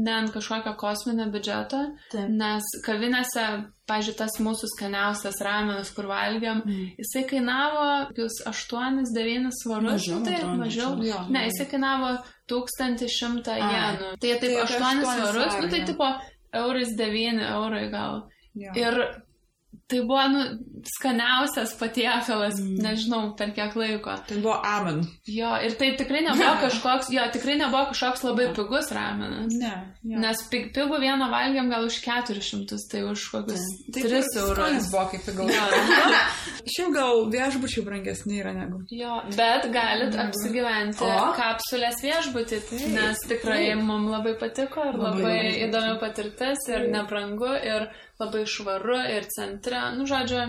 ne ant kažkokio kosminio biudžeto, nes kavinėse, pavyzdžiui, tas mūsų skaniausias ramenas, kur valgiam, jisai kainavo 8-9 svarus. Mažiau. Ne, jisai kainavo 1100 jenų. Tai taip 8 svarus, tai tipo eurais 9 eurai gal. Jo. Ir tai buvo, skaniausias patiekalas, nežinau, per kiek laiko. Tai buvo ramen. Jo, ir tai tikrai nebuvo kažkoks labai pigus ramenas. Ne. Jo. Nes pigų vieną valgiam gal už 400, tai už kokius 3 eurus. Skonis buvo kaip pigaus. Šiaip gal viešbučiai brangesni yra negu. Jo, bet galit apsigyventi kapsulės viešbutį, nes tikrai mums labai patiko ir labai įdomi patirtis ir nebrangu ir labai švaru ir centre, žodžiu.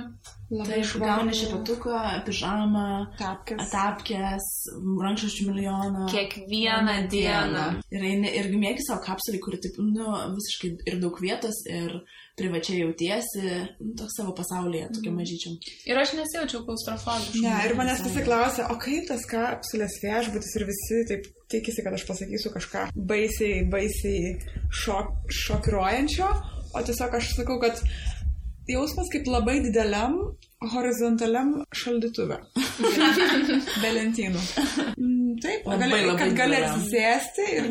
Labai švaru. Gauni šepatuką, pižamą, tapkės, rankšluosčių milijoną. Kiekvieną dieną. Ir mėgi savo kapsulį, kuri taip, visiškai ir daug vietos, ir privačiai jautiesi, toks savo pasaulyje, tokia mažyčiam. Ir aš nesijaučiau klaustrofobiškai. Ne, ir manęs visi klausia, o kaip tas kapsulės viešbutis ir visi taip tikisi, kad aš pasakysiu kažką baisiai šokiruojančio. O tiesiog aš sakau, kad jausmas kaip labai dideliam horizontaliam šaldytuve. Be lentynų. Taip, kad gali atsisėsti ir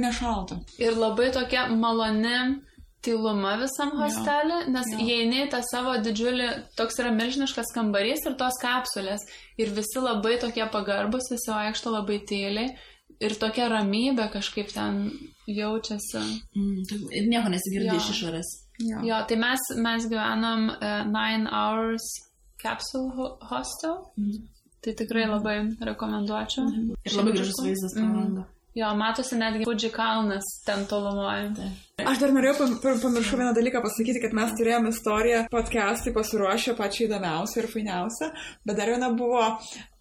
nešalta. Ir labai tokia maloni tyluma visam hostelį, nes įeini tą savo didžiulį, toks yra milžiniškas kambarys ir tos kapsulės. Ir visi labai tokie pagarbus, visi vaikšto labai tyliai. Ir tokia ramybė kažkaip ten jaučiasi. Ir nieko nesigirdi iš išorės. Jo, tai mes gyvenam 9 Hours Capsule Hostel. Tai tikrai labai rekomenduočiau. Ir labai gražus vaizdas pro langą. Jo, matosi netgi Fuji kalnas ten tolumoje. Aš dar norėjau pamiršau vieną dalyką pasakyti, kad mes turėjome istoriją podcast'ai pasiruošę pačią įdomiausią ir fainiausią, bet dar viena buvo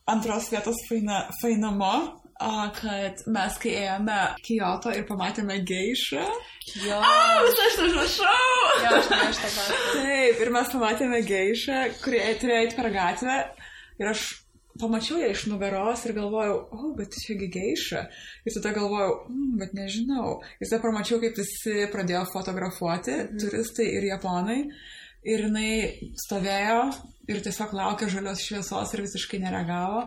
antros vietos fainamo. Kad mes, kai ėjome Kyoto ir pamatėme geišą. Jo. Visą aš užrašau. Jo, aš tą pasakau. Taip, ir mes pamatėme geišą, kurie turėjo eiti per gatvę. Ir aš pamačiau ją iš nugaros ir galvojau, bet čiagi geiša. Ir tada galvojau, bet nežinau. Ir tada pamačiau, kaip visi pradėjo fotografuoti, turistai ir japonai. Ir jinai stovėjo ir tiesiog laukė žalios šviesos ir visiškai nereagavo.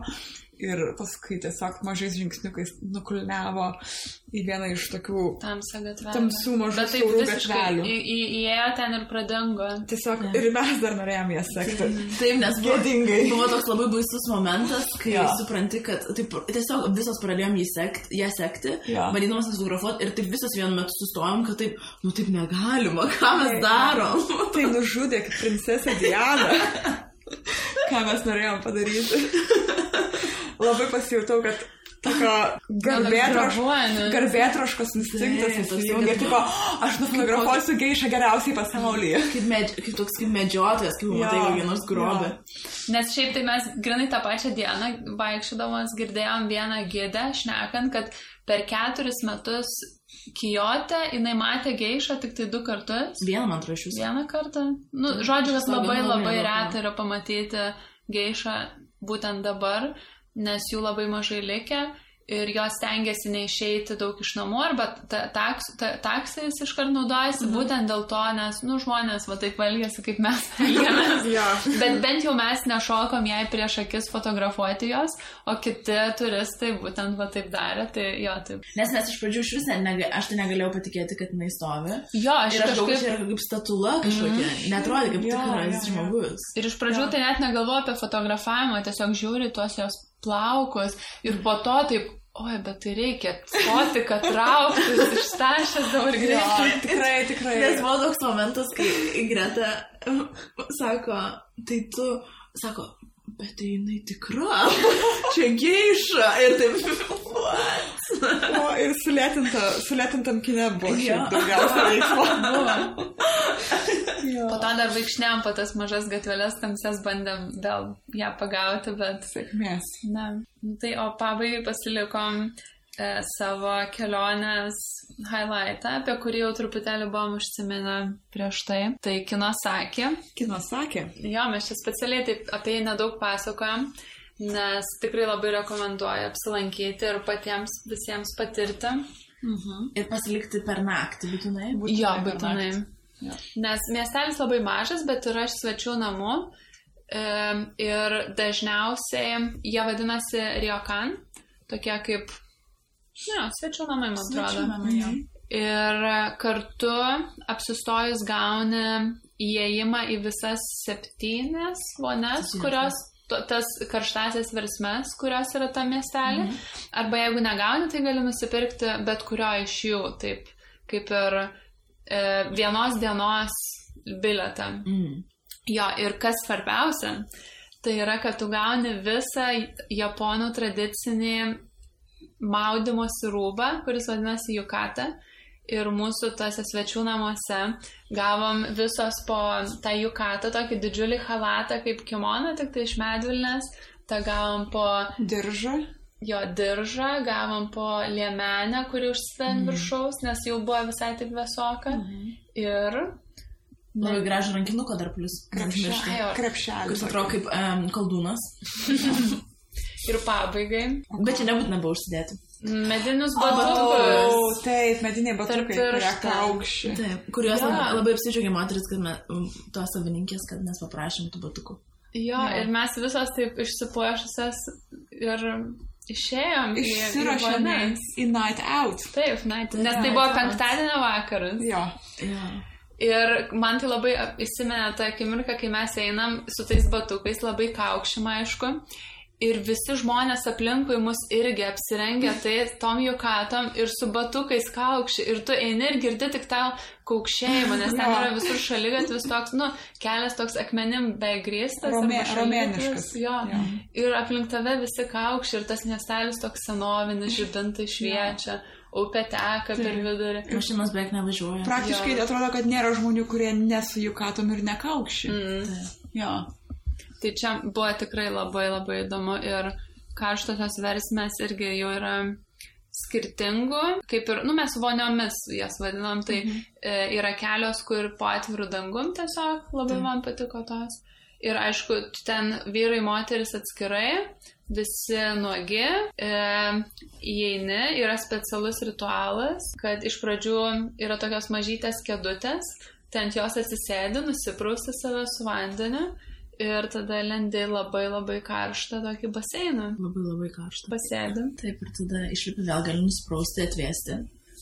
Ir paskui tiesiog mažais žingsniukais nukulniavo į vieną iš tokių tamsių mažų siaurų gatvelių. Įėjo ten ir pradingo. Tiesiog ir mes dar norėjom ją sekti. Taip, nes buvo toks labai baisus momentas, kai supranti, kad taip, tiesiog visos pradėjom ją sekti, bandydamas fotografuoti ir taip visos vienu metu sustojom, kad taip, nu taip negalima, ką mes darom. Tai nužudė kaip princesė Diana. Ką mes norėjom padaryti. Labai pasijutau, kad tokio garbėtroškos instinktas įsijungia. Tipo, aš nufotografuosiu geišą geriausiai pasaulyje. Kaip medžiotojas, kaip matai kokį nors grobį. Nes šiaip tai mes grinai tą pačią dieną vaikščiodamas girdėjom vieną gidę šnekant, kad per 4 metus Kijote jinai matė geišą tik tai 2 kartus. Vieną, man atrodo, iš jūsų. Vieną kartą. Nu, žodžiu, kad labai reta yra pamatyti geišą būtent dabar, nes jų labai mažai likę ir jos stengiasi neišeiti daug iš namų, arba taksais iškart naudojasi, būtent dėl to, nes, nu, žmonės va taip elgiasi, kaip mes elgiamės. Bet bent jau mes nešokom jai prieš akis fotografuoti jos, o kiti turistai būtent va taip darė, tai jo, taip. Nes mes iš pradžių iš visą, aš tai negalėjau patikėti, kad jinai stovi. Jo, aš galvoju, čia yra kaip statula kažkokia, netrodė kaip tikras žmogus. Ir iš pradžių tai net negalvoju apie fotografavimą, tiesiog žiūri tuos jos plaukus ir po to taip, oi, bet tai reikia stoti, kad trauktis, ištašęs dabar greitai. Tikrai. Nes buvo toks momentas, kai Greta sako, tai tu, sako, bet tai jinai tikra, čia geiša ir taip, what? O, ir sulėtintam kine buvo šiaip daugiausia veiksmo. Po to dar vaikšnėm po tas mažas gatvelės tamsias bandėm vėl ją pagauti, bet... Sėkmės. Na, tai o pabaigai pasilikom savo kelionės highlightą, apie kurį jau truputėlį buvom užsiminę prieš tai. Tai Kinosaki. Kinosaki? Jo, mes čia specialiai taip apie jį nedaug pasakojam, nes tikrai labai rekomenduoju apsilankyti ir patiems visiems patirti. Ir pasilikti per naktį, būtinai? Jo, būtinai. Ja. Nes miestelis labai mažas, bet yra svečių namų ir dažniausiai jie vadinasi ryokan, tokie kaip svečių namai, man atrodo. Ir kartu apsistojus gauni įėjimą į visas 7 vonias, kurios tas karštasias versmes, kurios yra tam miestelį. Arba jeigu negauni, tai gali nusipirkti bet kurio iš jų, taip kaip ir vienos dienos bilietą. Jo, ir kas svarbiausia, tai yra, kad tu gauni visą japonų tradicinį maudymosi rūbą, kuris vadinasi yukata. Ir mūsų tose svečių namuose gavom visos po tą yukatą, tokį didžiulį halatą kaip kimoną, tik tai iš medvilnės. Ta gavom po diržą. Jo, diržą, gavom po liemenę, kuri užsidant viršaus, nes jau buvo visai taip vėsoka. Ir... Labai gražų rankinuką dar plus. Krepšelį. Kuris atrodo kaip koldūnas. Ir pabaigai. Bet čia nebūtina buvo užsidėti. Medinius batukus. Taip, mediniai batukai, kurie kaukščiai. Taip, kuriuos labai apsidžiaugė moteris, kad tos savininkės, kad mes paprašėm tų batukų. Jo, ir mes visos taip išsipuošusios ir išėjom į night out. Taip, nes tai buvo penktadienio vakaras. Jo. Ir man tai labai įsimenė tą akimirką, kai mes einam su tais batukais, labai kaukšim, aišku. Ir visi žmonės aplinkui mus irgi apsirengia tom jukatom ir su batukais kaukši. Ir tu eini ir girdi tik tą kaukšėjimą, nes ten yra visur šaligatvis toks, kelias toks akmenim beveik grįstas. Romėniškas. Jo. Ir aplink tave visi kaukši ir tas miestelis toks senovinis, žibintai šviečia. Upė teka per vidurį. Mašinos beveik nevažiuoja. Praktiškai atrodo, kad nėra žmonių, kurie nesu jukatom ir nekaukši. Jo. Tai čia buvo tikrai labai labai įdomu ir karštosios versmės irgi jau yra skirtingų, kaip ir, mes voniomis jas vadinam, tai yra kelios, kur po atvirų dangum tiesiog labai man patiko tos. Ir aišku, ten vyrai, moteris atskirai, visi nuogi, įeini, yra specialus ritualas, kad iš pradžių yra tokios mažytės kėdutės, ten jos atsisėdi, nusiprausti save su vandeniu. ir tada lendi labai labai karštą tokį baseiną. Labai labai karštą. Pasėdi. Taip, ir tada išlipi vėl gali nusprausti, atvėsti.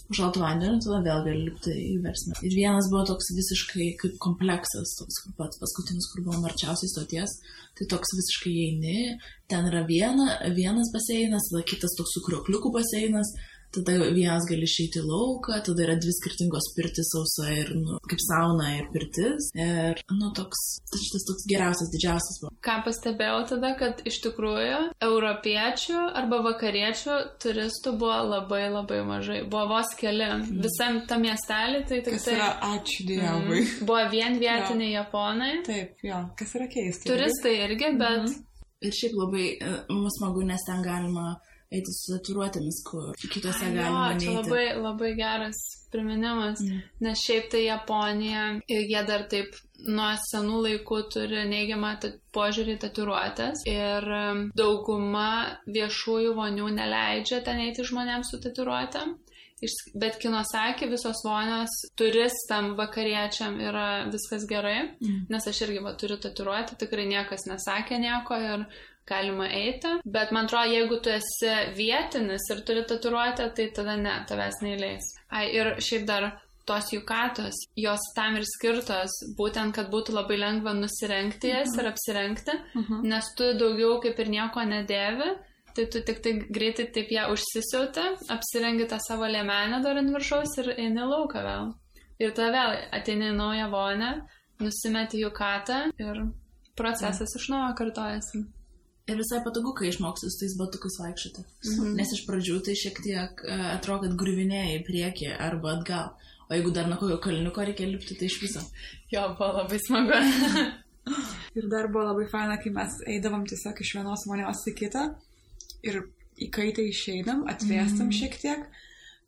Užšaltų vandenį, tada vėl gali lipti į versmę. Ir vienas buvo toks visiškai kaip kompleksas, toks kaip pats paskutinis, kur buvo arčiausiai stoties. Tai toks visiškai eini, ten yra vienas baseinas, tada kitas toks su kriokliukų baseinas, tada vienas gali išeiti į lauką, tada yra 2 skirtingos pirtis, sausa ir, kaip sauna ir pirtis. Ir, šitas toks geriausias, didžiausias buvo. Ką pastebėjau tada, kad iš tikrųjų europiečių arba vakariečių turistų buvo labai labai mažai. Buvo vos keli. Visam tam miestelį, tai tik kas yra, ačiū Dievui. Buvo vien vietiniai japonai. Taip, jo, kas yra keista. Turistai irgi, bet... Ir šiaip labai smagu, nes ten galima eiti su tatuiruotėmis, kur kitose galima neiti. Čia labai, labai geras priminimas, nes šiaip tai Japonija, jie dar taip nuo senų laikų turi neigiamą požiūrį į tatuiruotės ir dauguma viešųjų vonių neleidžia ten eiti žmonėms su tatuiruotėm. Bet Kinosaki visos vonios turistam, vakariečiam yra viskas gerai, nes aš irgi turiu tatuiruotę, tikrai niekas nesakė nieko ir galima eiti. Bet man atrodo, jeigu tu esi vietinis ir turi tatuiruotę, tai tada ne, tavęs neįleis. Ir šiaip dar tos jukatos, jos tam ir skirtos, būtent, kad būtų labai lengva nusirengti jas ir apsirengti, nes tu daugiau kaip ir nieko nedėvi. Tai tu tik tai greitai taip ją užsisiauti, apsirengi tą savo liemenę dar ant viršaus ir eini lauką vėl. Ir tada vėl ateini į naują vonę, nusimeti jukatą ir procesas iš naujo kartojasi. Ir visai patogu, kai išmoksi su tais batukais vaikščioti. Nes iš pradžių tai šiek tiek atrodo, kad griuvinėji į priekį arba atgal. O jeigu dar nuo kokio kalniuko reikia lipti, tai iš viso. Jo, buvo labai smagu. Ir dar buvo labai faina, kai mes eidavom tiesiog iš vienos vonios į kitą. Ir įkaitę išeinam, atvėstam šiek tiek,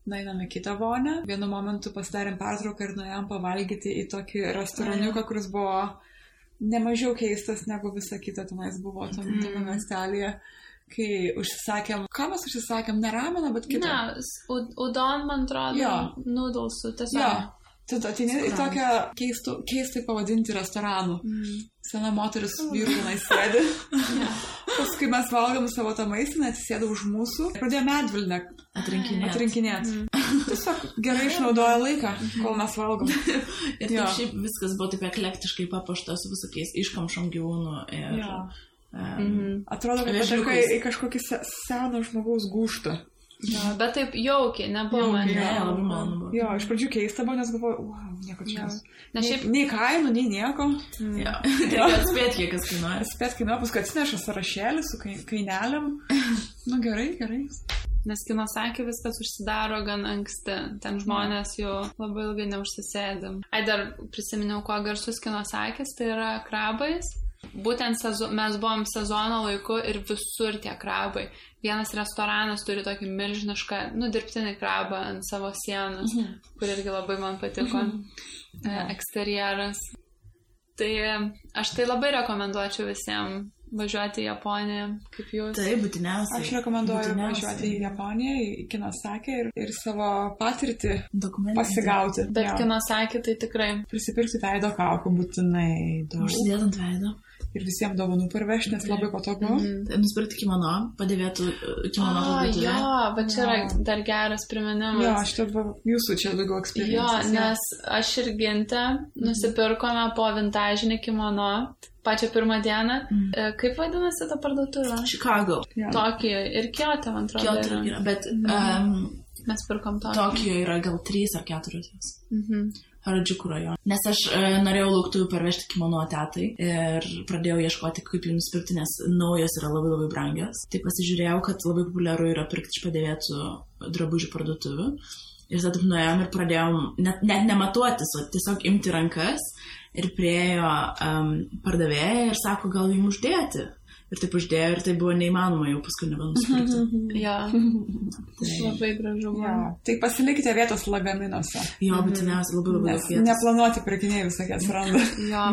nueinam į kitą vonę. Vienu momentu pasidarėm pertrauką ir nuėjom pavalgyti į tokį restoraniuką, kuris buvo nemažiau keistas negu visa kita tenais buvo tame miestelėje. Kai užsisakėm, ką mes užsisakėm, ne rameną, bet kitą. Ne, udon, man atrodo, noodlesų, tiesiog. Jo. Tu ateini į tokią keistai pavadinti restoranų. Sena moteris vyrų tenais sėdi. Paskui mes valgom savo tą maistą, atsisėdo už mūsų. Pradėjo medvilnę atrinkinėti. Tiesiog gerai išnaudoja laiką, kol mes valgom. Ir taip šiaip viskas buvo taip eklektiškai papuošta su visokiais iškamšom gyvūnų. Atrodo, kad patenka į kažkokį seną žmogaus gūžtą. Jo, bet taip jaukiai, nebuvo man. Labai malonu buvo. Jo, iš pradžių keista buvo, nes galvoju, wow, nieko čia. Šiaip... Nei kainų, nei nieko. Jo, reikia atspėti, kiek kas kainuoja. Atspėti kainuoja, paskui atsineša sąrašėlį su kainelėm. Gerai. Nes Kinosaki viskas užsidaro gan anksti. Ten žmonės jau labai ilgai neužsisėdi. Dar prisiminiau, kuo garsus Kinosakis, tai yra krabais. Būtent mes buvom sezono laiku ir visur tie krabai. Vienas restoranas turi tokį milžinišką, dirbtinį krabą ant savo sienos, kur irgi labai man patiko eksterjeras. Tai aš tai labai rekomenduočiau visiems važiuoti į Japoniją, kaip jūs. Tai būtiniausiai. Aš rekomenduoju važiuoti į Japoniją, į Kinosaki ir savo patirtį pasigauti. Bet Kinosaki tai tikrai. Prisipirkti veido kaukių būtinai daug. Užsidėdant veido. Ir visiems dovanų parvežti, nes labai patogu. Nusipirkti kimono, padėvėtų kimono parduotuvę. Jo, bet čia yra dar geras priminimas. Jo, aš jūsų čia daugiau eksperiencijos. Jo, nes aš ir Ginte nusipirkome po vintažinį kimono pačią pirmą dieną. Kaip vadinasi ta parduotuvė? Chicago. Tokijo ir Kyoto, man atrodo. Kyoto yra, bet mes pirkom Tokijo. Tokijo yra gal 3 ar 4. Harajuku rajone. Nes aš norėjau lauktuvių parvežti kimono tetai ir pradėjau ieškoti, kaip jų nusipirkti, nes naujos yra labai labai brangios. Tai pasižiūrėjau, kad labai populiaru yra pirkti iš padėvėtų drabužių parduotuvių. Ir tada nuėjom ir pradėjom net nematuotis, o tiesiog imti rankas ir priejo pardavėja ir sako, gal jums uždėti. Ir taip uždėjo ir tai buvo neįmanoma jau paskui nebenusipirkti. Jo, tai labai gražu buvo. Tai pasilikite vietos lagaminuose. Jo, būtiniausiai labai vietos. Neplanuoti pirkiniai visokie atsiranda.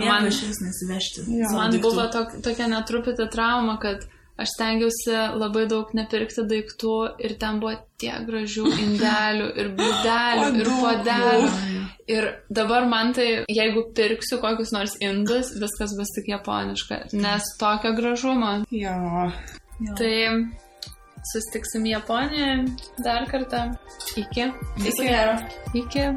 Man išvis nesivežti. Man buvo tokia netruputį trauma, kad aš stengiausi labai daug nepirkti daiktų ir ten buvo tiek gražių indelių ir bliūdelių ir puodelių. Ir dabar man tai, jeigu pirksiu kokius nors indus, viskas bus tik japoniška, nes tokio gražumo. Jo. Tai susitiksim Japonijoje dar kartą. Iki. Viso gero. Iki.